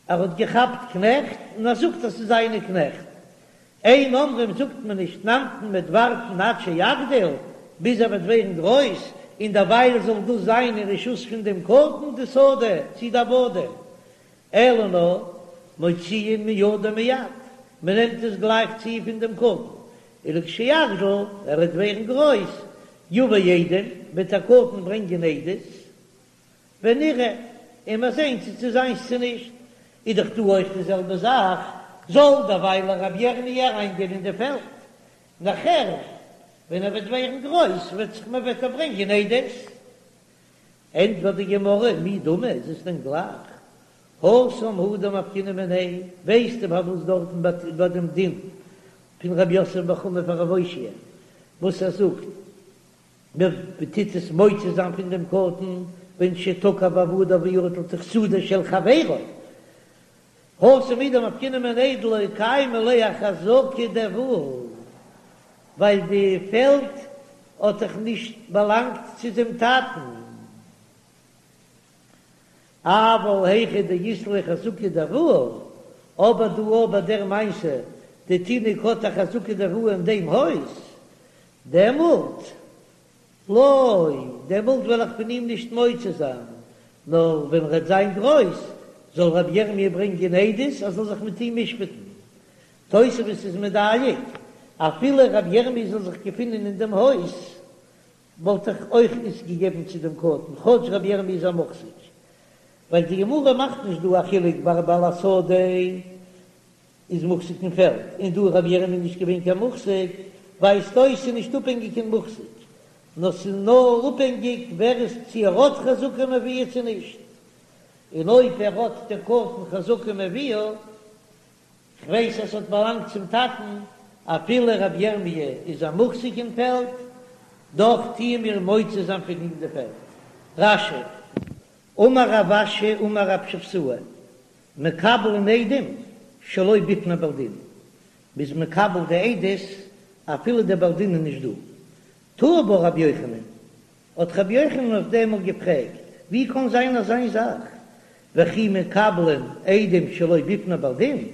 S1: ער האט געכאפט קנעכט און ער זאגט אז ס'איז זיינע קנעכט. אין אומרים זאגט מען נישט נמתין מ'וועט ווארטן עד שיגדיל, ביז ער וועט ווערן גרויס, און דערווייל זאל דאס זיין אין רשות פון דעם קטן די שדה צי די עבדים, אלא נאר מוציאין מידו מיד, מען נעמט עס גלייך צו פון דעם קטן, ולכשיגדיל, ער וועט ווערן גרויס, יבא עדים, וועט דער קטן ברענגען עדות, ונראה, און מיר זעהן צו ס'איז זיינס צו נישט, איז דאך דא אויך די זעלבע זאך, זאל דערווייל רבי ירמי' אריינגיין אין די פעלד, נאכער ווען ער וועט ווערן גרויס וועט זיך מען וועט ער ברענגען עדות. ענטפערט די גמרא, מי דמי, איז עס דען גלייך? התם הוא דמפקינן מיניה, ווייסטו פארוואס דארטן ביי דעם דין פון רב יוסף בר חמא פאר רב אושעיא וואס ער זאגט מען טוט עס מוציא זיין פון דעם קטן ווען שתקף בעבדיו וירד לתוך שדה של חברו, התם הוא דמפקינן מיניה דלא קיימא ליה אחזקה דאבוה, ווייל די פעלד האט דאך נישט באלאנגט צו דעם טאטן. אבל היכא דאית ליה חזקה דאבוה, אבער דא ביי דער מעשה די תינוק האט א חזקה דאבוה אין דעם הויז, דעמאלט לא, דעמאלט וועל איך פון אים נישט מוציא זיין, נאר ווען ר'עט זיין גרויס, זאל רבי ירמי' ברענגען עדות אז זאל זיך מיט אים משפט'ן. תוספות איז מדייק, אפילו רבי ירמי' זאל זיך געפינען אין דעם הויז, וואלט איך אויך עס געגעבן צו דעם קטן, כאטש רבי ירמי' איז א מוחזק. ווייל די גמרא מאכט נישט דא א חילוק ביי בעל השדה איז מוחזק אין פעלד, און דא איז רבי ירמי' נישט געווען קיין מוחזק, ווייזט אויס ס'איז נישט אפהענגיק אין מוחזק, נאר ס'איז נאר אפהענגיק ווער עס צו ער האט חזקה מאביה צו נישט, און אויב ער האט דער קטן חזקה מאביה, כ'ווייס אז ס'האט באלאנגט צום טאטן, אפילו רבי ירמי' איז א מוחזק אין פעלד, דאך טוען מיר מוציא זיין פון אים די פעלד. רש"י, אמר רב אשי אמר רב שבתאי, מקבלין עדים שלא בפני בעל דין, מ'איז מקבל די עדות אפילו דער בעל דין איז נישט דא. תהי בה רבי יוחנן, האט רבי יוחנן אויף דעם מאל געפרעגט, ווי קאן זיין אזיין זאך, וכי מקבלין עדים שלא בפני בעל דין,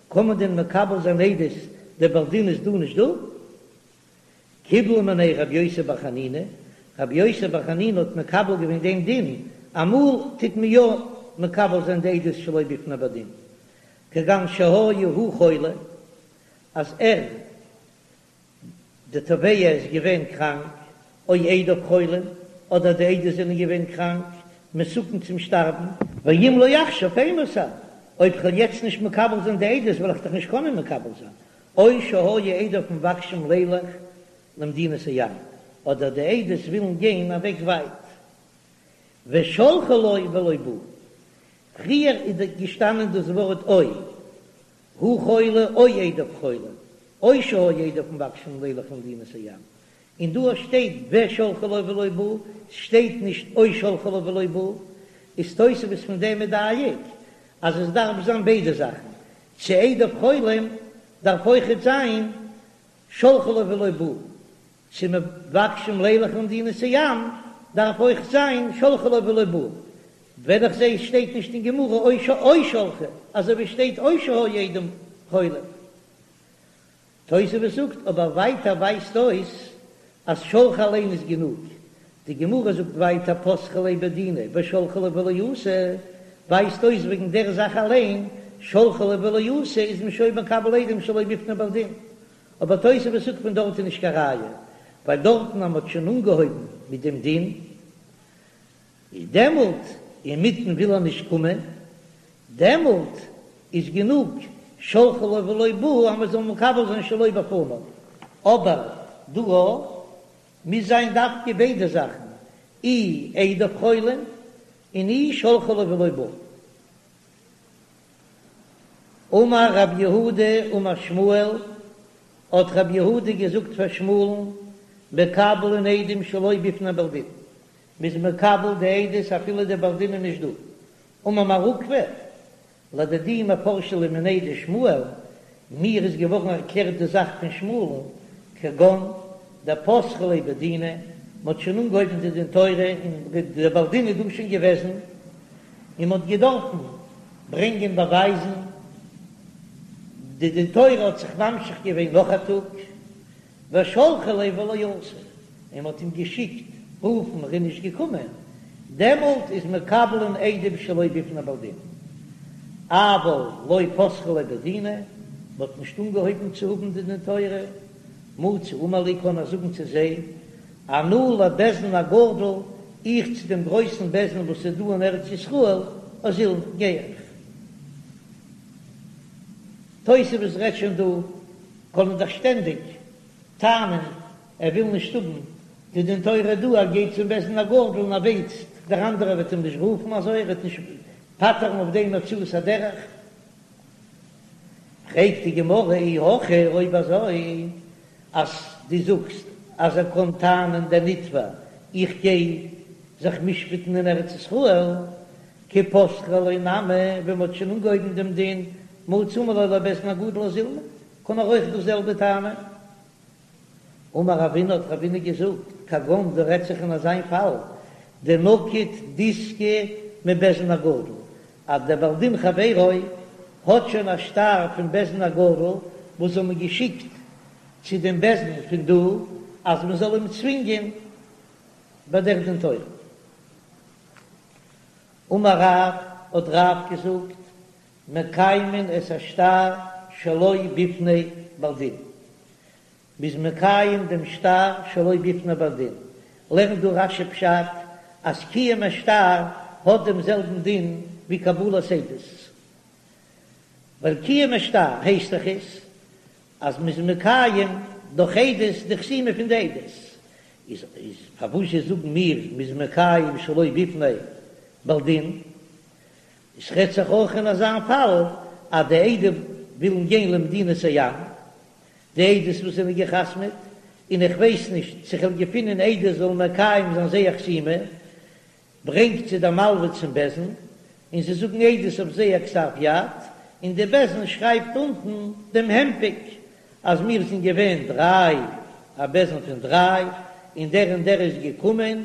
S1: קען מען דען מקבל זיין עדות דער בעל דין איז דא נישט דא? קיבלה מיניה רבי יוסי בר חנינא, רבי יוסי בר חנינא האט מקבל געווען דעם דין, אמאל טוט מען יא מקבל זיין די עדות שלא בפני בעל דין, כגון שהיה הוא חולה, אז ער די תובע איז געווען קראנק, או עדיו חולים, אדער די עדות זענען געווען קראנק, מסוכן צום שטארבן, ואם לא עכשיו אימתי, אויב כ'וועל יעצט נישט מקבל זיין די עדות וועל איך דאך נישט קענען מקבל זיין, או שהיו עדיו מבקשים לילך למדינת הים, אדער די עדות ווילן גיין אוועק ווייט. ושלחו לו ולא בא. פריער איז געשטאנען דאס ווארט או, הוא חולה או עדיו חולים, או שהיו עדיו מבקשים לילך למדינת הים, און דא שטייט ושלחו לו ולא בא, ס'שטייט נישט או שלחו לו ולא בא, איז תוספות פון דעם מדייק אז עס דארף זיין ביידע זאכן, צו עדיו חולים דארף אויכעט זיין שלחו לו ולא בא, צו מבקשים לילך למדינת הים דארף אויך זיין שלחו לו ולא בא, ווען איך זעה עס שטייט נישט אין גמרא או שלחו, אזוי ווי שטייט או שהיו עדיו חולים. תוספות זאגט אבער ווייטער ווייזט אויס אז שלחו אליין איז גענוג, די גמרא זאגט ווייטער פתחו ליה בדינא ושלחו ליה ולא אתא, ווייזט אויס וועגן דער זאך אליין, שלחו ליה ולא אתא איז מען שוין מקבל עדים שלא בפני בעל דין, אבער תוספות זאגט פון דארט איז נישט קיין ראיה, ווייל דארטן אז מ'האט שוין אנגעהויבן מיט דעם דין, איז דעמאלט אינמיטן וויל ער נישט קומען, דעמאלט איז גענוג שלחו לו ולא בא אז מ'זאל מקבל זיין שלא בפניו, אבער. דא מוז זיין דווקא ביידע זאכן, אי עדיו חולין און אי שלחו לו ולא בא. אמר רב יהודה אמר שמואל, האט רב יהודה געזאגט פאר שמואל'ן, מקבלין עדים שלא בפני בעל דין, מ'איז מקבל די עדות אפילו דער בעל דין איז נישט דא. אמר מר עוקבא, לדידי מפרשא לי מיניה דשמואל, מיר איז געווארן ערקלערט די זאך פון שמואל'ן, כגון דפתחי ליה בדינא, מ'האט שוין אנגעהויבן די דין תורה און דער בעל דין איז דא שוין געוועזן, און מ'האט געדארפן ברענגען באווייזן, די דין תורה האט זיך ממשיך געווען נאך א טאג, ושלחו ליה ולא אתא, און מ'האט אים געשיקט רופן ער איז נישט געקומען, דעמאלט איז מקבלין עדים שלא בפני בעל דין, אבל לא פתחי ליה בדינא, מ'האט נישט אנגעהויבן צו האבן די דין תורה, מצי אמר להו קען ער זאגן צו זיי, אנא לבית דין הגדול, איך צו דעם גרויסן בית דין וואס איז דא אין ארץ ישראל, אזילנא, גיי איך. תוספות רעדט שוין דא, קען ער דאך שטענדיג טענה'ן ער וויל נישט האבן די דין תורה דא, ער גייט צום בית דין הגדול און ער ווייסט דער אנדערער וועט אים נישט רופן אזוי ער וועט נישט פטר'ן אויף דעם הוצאת הדרך. פרעגט די גמרא אי הכי אויב אזוי אז דו זאגסט אז ער קען טענה'ן דער נתבע איך גיי זיך משפט'ן אין ארץ ישראל, כי פתחי ליה נמי, ווען מ'האט שוין אנגעהויבן דעם דין, מצי אמר להו לבית דין הגדול אזילנא, קען ער אויך דאס זעלבע טענה'ן. אמר רבינא האט רבינא געזאגט, כגון דא רעדט זיך אין אזיין פאל, דנקיט דיסקא מבית דין הגדול, אז דער בעל דין חברו האט שוין א שטר פון בית דין הגדול וואס האבן געשיקט צו דעם בית דין פון דא אז מען זאל אים צווינגען ביי דער דין תורה. אמר רב, האט רב געזאגט, מקיימין את השטר שלא בפני בעל דין, מ'איז מקיים דעם שטר שלא בפני בעל דין, לערנט דא רש"י פשט אז קיום השטר האט דעם זעלבן דין ווי קבלת עדות, ווייל קיום השטר הייסט דאך עס אז מ'איז מקיים דורך עדות די חתימה פון די עדות, איז איז פארוואזשע זאגן מיר מ'איז מקיים שלא בפני בעל דין? עס רעדט זיך אויך אין אזא פאל אז די עדים ווילן גיין למדינת הים, די עדות וואס זענען גע'חתמ'עט, און איך ווייס נישט צו כ'וועל געפינען עדות זאלן מקיים זיין זייער חתימה, ברענגט זיי דער מלווה צום בית דין, און זיי זאגן עדות אויף זייער כתב יד, און די בית דין שרייבט אונטן דעם הנפק אז מיר זענען געווען דריי, א בית דין פון דריי, און דער און דער איז געקומען,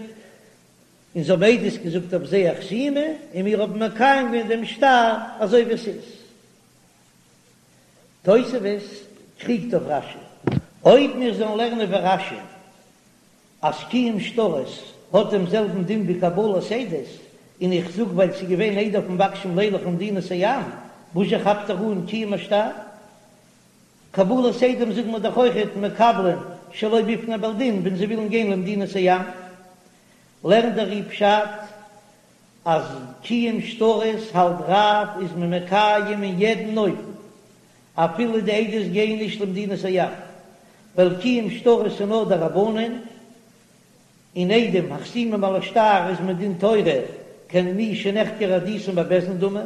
S1: און זיי האבן עדות געזאגט אויף זייער חתימה, און מיר האבן מקיים געווען דעם שטר אזוי ווי עס איז. תוספות קריגט אויף רש"י. אויב מיר זאלן לערנען ווי רש"י אז קיום שטרות האט דעם זעלבן דין ווי קבלת עדות, און איך זאג ווייל ס'איז געווען עדיו מבקשים לילך למדינת הים, וואזשע כאפט ער אן קיום השטר? קבלת עדים זאגן מיר דאך אויכעט מקבלין שלא בפני בעל דין ווען זיי ווילן גיין למדינת הים. לערנט דער ר"י פשט אז קיום שטרות האלט רב איז מען מקיים אין יעדן אופן אפילו די עדות גייען נישט למדינת הים, ווייל קיום שטרות איז נאר דרבנן, און עדים החתומים על השטר איז מדין תורה כמי שנחקרה עדותן בבית דין דמי,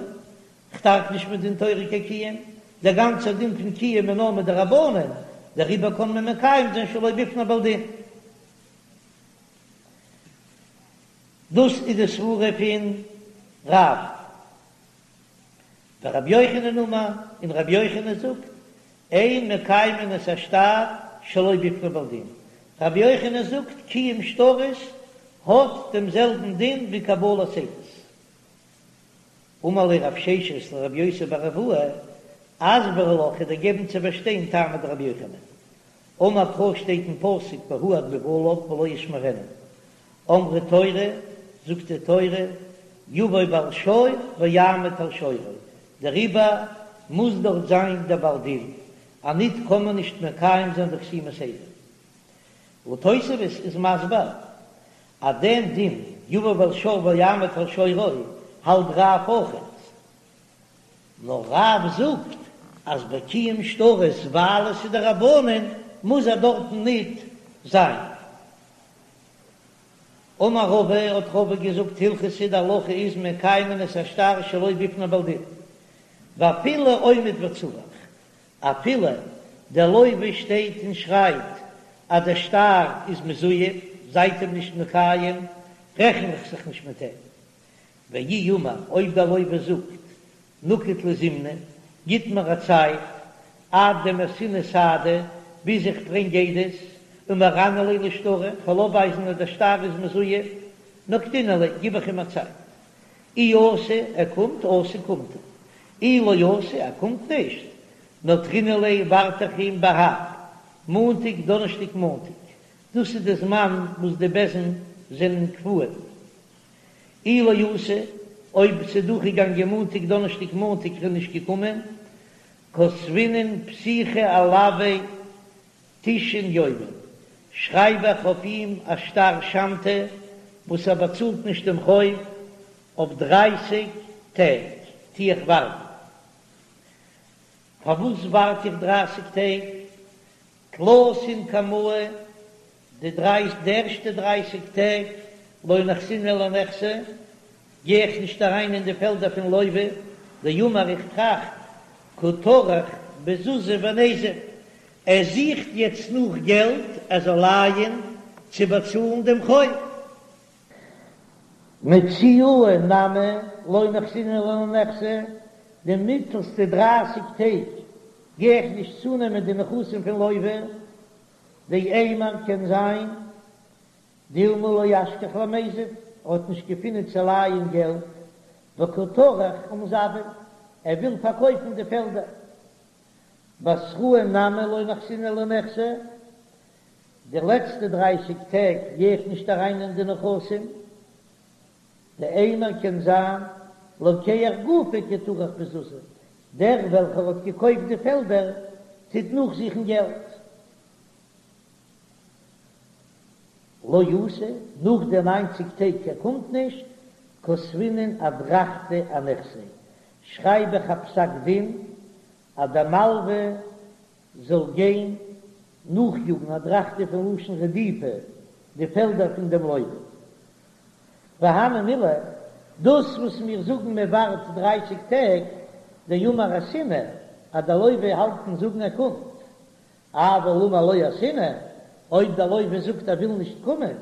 S1: כ'דארף נישט מדין תורה קיין קיום, דער גאנצער דין פון קיום איז נאר מדרבנן, דעריבער קען מען מקיים זיין שלא בפני בעל דין. דאס איז די סברה פון רב. ורבי יוחנן אמר, און רבי יוחנן זאגט, אין מקיימין את השטר שלא בפני בעל דין. רבי יוחנן זאגט, קיום שטרות האט דעם זעלבן דין ווי קבלת עדות. אמר ליה רב ששת לרבי יוסי בר אבוה, אסברא לך, כ'וועל דיר געבן צו פארשטיין טעמא דרבי יוחנן. אמר קרא שטייט אין פסוק והועד בבעליו ולא ישמרנו. אמרה תורה, זאגט די תורה, יבא בעל שור ויעמוד על שורו, דעריבער מוז דארט זיין דער בעל דין, אניט קען מען נישט מקיים זיין די חתימת עדים. און תוספות איז מסביר אז דעם דין יבא בעל שור ויעמוד על שורו האלט רב אויכעט, נאר רב זאגט אז ביי קיום שטרות ווייל עס איז דרבנן מוז ער דארטן ניט. זיין. אמר רבא, האט רבא געזאגט, הלכתא די הלכה איז מקיימין את השטר שלא בפני בעל דין, ואפילו עומד וצווח, אפילו דער לוה שטייט און שרייט אז דער שטר איז מזויף, זייט אים נישט מקיים, רעכן איך זיך נישט מיט אים. ואי אמר, אויב דער לוה זאגט, נקיט לי זימנא, גיט מיר א צייט, עד דמייתינא סהדי, ביז איך ברענג עדות, ומראנא ליה לשטרא, כ'וועל אויפווייזן אז דער שטר איז מזויף, נקטינן ליה, גיב איך אים א צייט. אי אתא, ער קומט, אתא קומט ער. אי לא אתא, ער קומט נישט, נטרינן ליה, ווארט איך אים בהב, מאנטאג, דאנערשטאג, מאנטאג. דאס איז די זמן וואס די בית דין זענען קבועים. אי לא אתא, אויב ס'איז דורכגעגאנגען מאנטאג, דאנערשטאג, מאנטאג, ער איז נישט געקומען, כתבינן פתיחא עילויה תשעין יומין, שרייב איך אויף אים א שטר שמתא וואס ער באצאלט נישט דעם חוב אויף דרייסיג טעג, טו איך ווארטן. פארוואס ווארט איך דרייסיג טעג? תלתין קמאי, די דריי די ערשטע דרייסיג טעג לא נחתינן לנכסי, גיי איך נישט אריין אין די פעלדער פון לוה, דאמר איך טראכט קא טרח בזוזי וניזיל, ער זוכט יעצט נאך געלט ער זאל לייען צו באצאלן דעם חוב. מציעאי נמי לא נחתינן לנכסי, די מיטלסטע דרייסיג טעג גיי איך נישט צונעמען די נכסים פון לוה, דאימר קען זיין דילמא לא אשכח למיזב, ער האט נישט געפינען צו לייען געלט, וקא טרח ומזבין, ער וויל פארקויפן די פעלדער. בתראי נמי לא נחתינן לנכסי, די לעצטע דרייסיג טעג גיי איך נישט אריין אין די נכסים, דאימר קען זיין לוקח גופיה קא טרח בזוזי, דער וועלכער האט געקויפט די פעלדער טוט נאכזוכן געלט. לא אתא, נאך די ניינציג טעג ער קומט נישט, כתבינן אדרכתא אנכסיה, שרייב איך א פסק דין אז דער מלווה זאל גיין נאכיאגן אדרכתא פון לשון רדיפה די פעלדער פון דעם לוה. והני מילי, דאס וואס מיר זאגן מען ווארט דרייסיג טעג, דאמר אתינא, אז דער לוה האלט אין זאגן ער קומט, אבל אמר לא אתינא, אויב דער לוה זאגט ער וויל נישט קומען,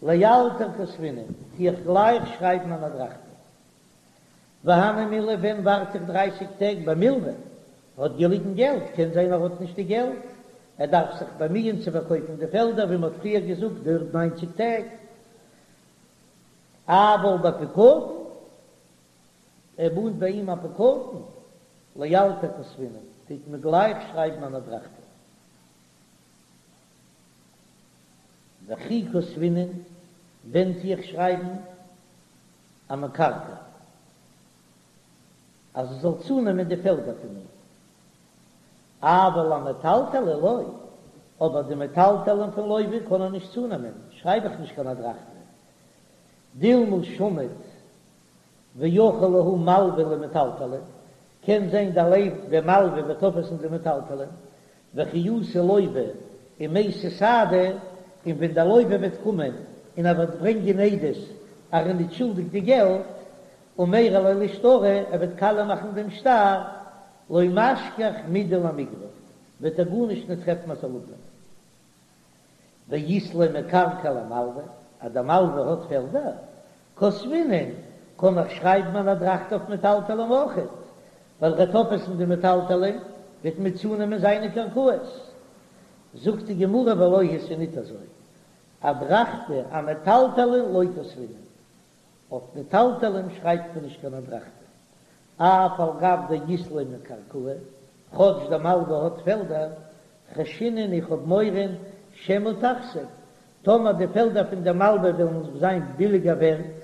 S1: לאלתר כתבינן, טו איך גלייך שרייבן אן אדרכתא. והני מילי ווען ווארט איך דרייסיג טעג במלווה? האט געליגן געלט, קען זיין ער האט נישט די געלט, ער דארף זיך באמיען צו פארקויפן די פעלדער ווי מען האט פריער געזאגט דויערט ניינציג טעג, אבל בפקדון, ער מאנט ביי אים א פקדון, לאלתר כתבינן, טוט מען גלייך שרייבן אן אדרכתא. וכי כתבינן, ווען טו איך שרייבן אמקרקעי, אז ער זאל צונעמען די פעלדער פון אים. אבל אמטלטלי לא, אבער די מטלטלין פון לוה קען ער נישט צונעמען, שרייב איך נישט קיין אדרכתא. דילמא שמיט ואכיל להו מלווה למטלטלין, קען זיין דער לוה דער מלווה וועט אויפעסן די מטלטלין, וכי אתי לוה ומייתי סהדי, און ווען דער לוה וועט קומען און ער וועט ברענגען עדות אז ער איז נישט שולדיג די געלט, ומרע ליה לשטרא, ער וועט קאליע מאכן דעם שטר, לא משכח מידי למיגרף, וועט ער גארנישט נישט טרעפן אז זאל אפנעמען. ואית ליה מקרקעי למלווה, אז דער מלווה האט פעלדער, כתבינן, קען איך שרייבן אן אדרכתא אויף מטלטלין אויכעט, ווייל ער וועט אויפעסן די מטלטלין, וועט מען צונעמען זיינע קרקעות. זאגט די גמרא ולא היא ס'איז ניט אזוי, אדרכתא אמטלטלין לא כתבינן, אויף מטלטלין שרייבט מען נישט קיין אדרכתא, אף על גב דאית ליה מקרקעי, כאטש דער מלווה האט פעלדער, חיישינן איך האב מורא שמא תכסיף, טאמער די פעלדער פון דער מלווה וועלן זיין ביליגער ווערט,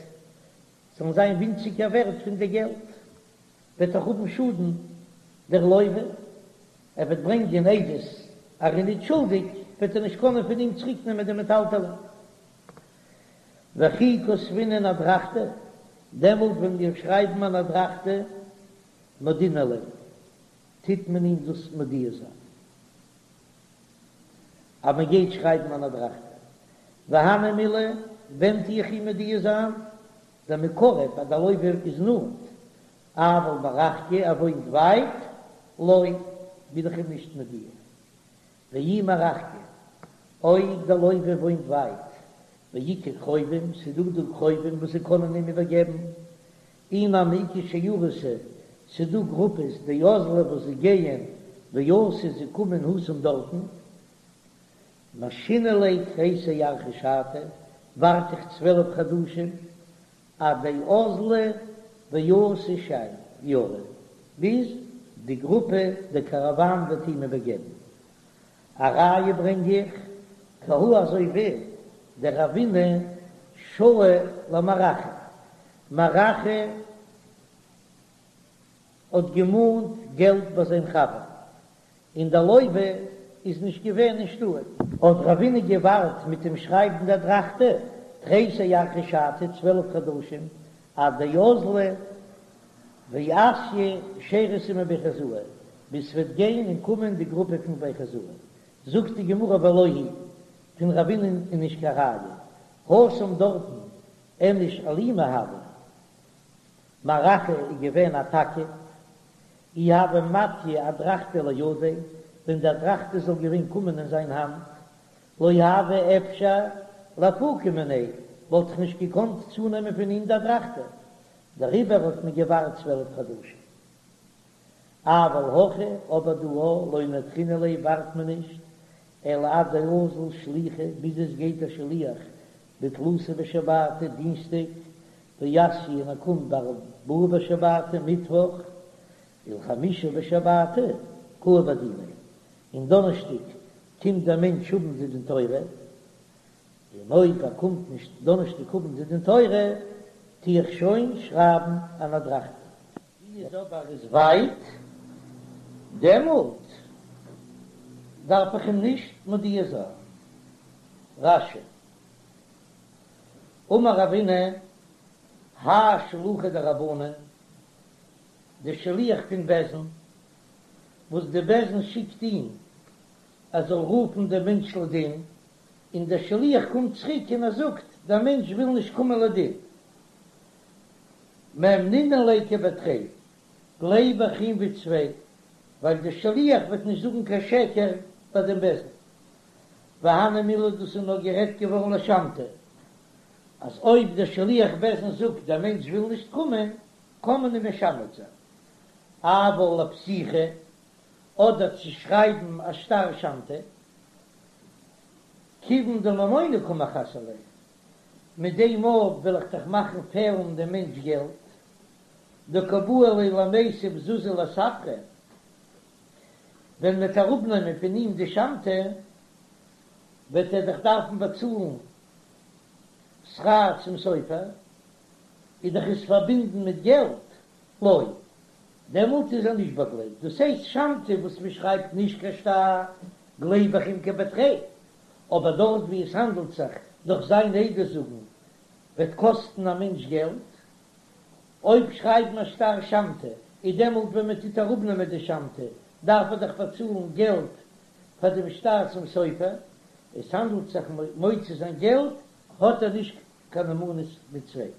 S1: זאלן זיין ווינציגער ווערט פון די געלט, וועט ער האבן שאדן דער לוה, ער וועט ברענגען עדות אז ער איז נישט שולדיג, וועט ער נישט קענען פון אים צוריק נעמען די מטלטלין. וכי כתבינן אדרכתא, דעמאלט ווען מיר שרייבן אן אדרכתא, מודעינן ליה, טוט מען אים דאס מודיע זיין. אז מען גייט שרייבן אן אדרכתא. והני מילי, ווען טו איך אים מודיע זיין? דמיקרב אז דער לוה איז נאנט, אבל מרחקא ער וואוינט ווייט, לא, בין איך אים נישט מודיע. ואי מרחקא, אויב דער לוה וואוינט ווייט, ואיכא קרובים, ס'איז דא דא קרובים וואס זיי קענען אים איבערגעבן, אי נמי איכא שיירתא, ס'איז דא גרופעס דאזלי וואס זיי גייען ואתו זיי קומען התם דארטן, משהינא ליה תריסר ירחי שתא, ווארט איך 12 חדשים, עד דאזלי ואתו שיירא, ביז די גרופע, די קאראוואן וועט אים איבערגעבן. א ראיה ברענג איך, כי הא אזוי ווי דרבינא שהי למר אחא, מר אחא האט געמאנט געלט ביי זיין חבר, און דער לוה איז נישט געווען אין שטאט. האט רבינא געווארט מיט אים שרייבן די אדרכתא תריסר ירחי שתא, 12 חדשים, עד דאזלי ואתיא שיירתא מבי חוזאי, ביז ס'וועט גיין און קומען די גרופע פון בי חוזאי. זאגט די גמרא ולא היא, פון רבינא'ן איז נישט קיין ראיה, התם דארטן איניש אלימא הוה, מר אחא איז געווען א תקיף, אי הוה מטיא אדרכתא לידיה, ווען די אדרכתא זאל געווען קומען אין זיין האנט, לא הוה אפשר לאפוקי מיניה, וואלט איך נישט געקאנט צונעמען פון אים די אדרכתא, דעריבער האט מען געווארט 12 חדשים. אבל הכא, אבער דא לא נטרינן ליה ווארט מען נישט, אלא עד דאזיל שליחא, ביז עס גייט א שליח בתלתא בשבתא, דינסטאג, ואתיא און ער קומט בארבעה בשבתא, מיטוואך, ולחמישא בשבתא קאי בדיניה, און דאנערשטאג קומט דער מענטש האבן די דין תורה, און אויב ער קומט נישט דאנערשטאג האבן די דין תורה, טו איך שוין שרייבן אן אדרכתא. ווי איז אבער איז ווייט, דעמאלט דארף איך אים נישט מודיע זיין. רש"י, אמר רבינא, האי שלוחא דרבנן, די שליח פון בית דין, וואס די בית דין שיקט אים ער זאל רופן דעם מענטש לדין, און דער שליח קומט צוריק און ער זאגט, דער מענטש וויל נישט קומען לדין. מהימנינן ליה כבי תרי, גלייב איך אים ווי צוויי, ווייל דער שליח וועט נישט זאגן קיין שקר ביי דעם בית דין. והני מילי דאס איז נאר גערעדט געווארן לשמתא, אז אויב דער שליח בית דין זאגט דער מענטש וויל נישט קומען, קען מען אים משמת זיין. אבל לפתיחה, אדער צו שרייבן א שטר שמתא, כיוון דממונא קא מחסר ליה, מיט דעם מאל וועל איך דאך מאכן פעלן דעם מענטש געלט, דקא בעי ליה למיתב זוזי לספרא, ווען מ'וועט אראפנעמען פון אים די שמתא, וועט ער דאך דארפן באצאלן שכר צום סופר, איז דאך עס פארבינדן מיט געלט, לא, דעמאלט איז ער נישט באגלייבט, דאס הייסט שמתא וואס מ'שרייבט נישט קיין שטר, גלייב איך אים כבי תרי, אבער דארט ווי עס האנדלט זיך דורך זיין עדות זאגן וועט קאסטן א מענטש געלט, אויב שרייבן א שטר שמתא איז דעמאלט ווען מען טוט אראפנעמען די שמתא דארף ער דאך באצאלן געלט פאר דעם שטר צום סופר, עס האנדלט זיך מוציא זיין געלט האט ער נישט קיין נאמנות מיט צוויי.